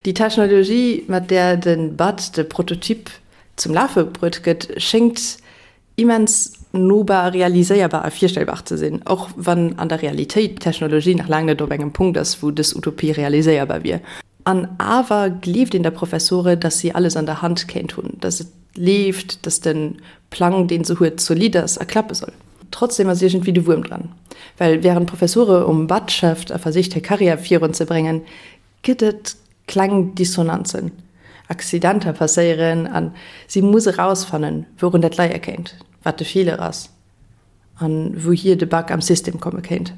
Déi Technologie, mat där de Bud de Prototyp zum Lafe bruet gëtt, schéngt immens nobar, realiséierbar a virstellbar ze sinn, och wann an der Realitéit d'Technologie nach laang net op engem Punkt ass, wou dës Utopie realiséierbar wier. An awer gleeft een der Professore, dass si alles an der Hand kéint hunn, dass et leeft, dass de Plang, dee se huet, zolidd ass a klappe soll. Trotzdem ass iergendwéi de Wuerm dran, well wärend d'Professore um Bud schafft a versicht hir Karriär virunzebréngen, gëtt et kleng Dissonanzen. Accidenter passéieren a si muss erausfannen, wourun dat leie kéint, wat de Feeler ass a wouhier de Bug am System komme kéint.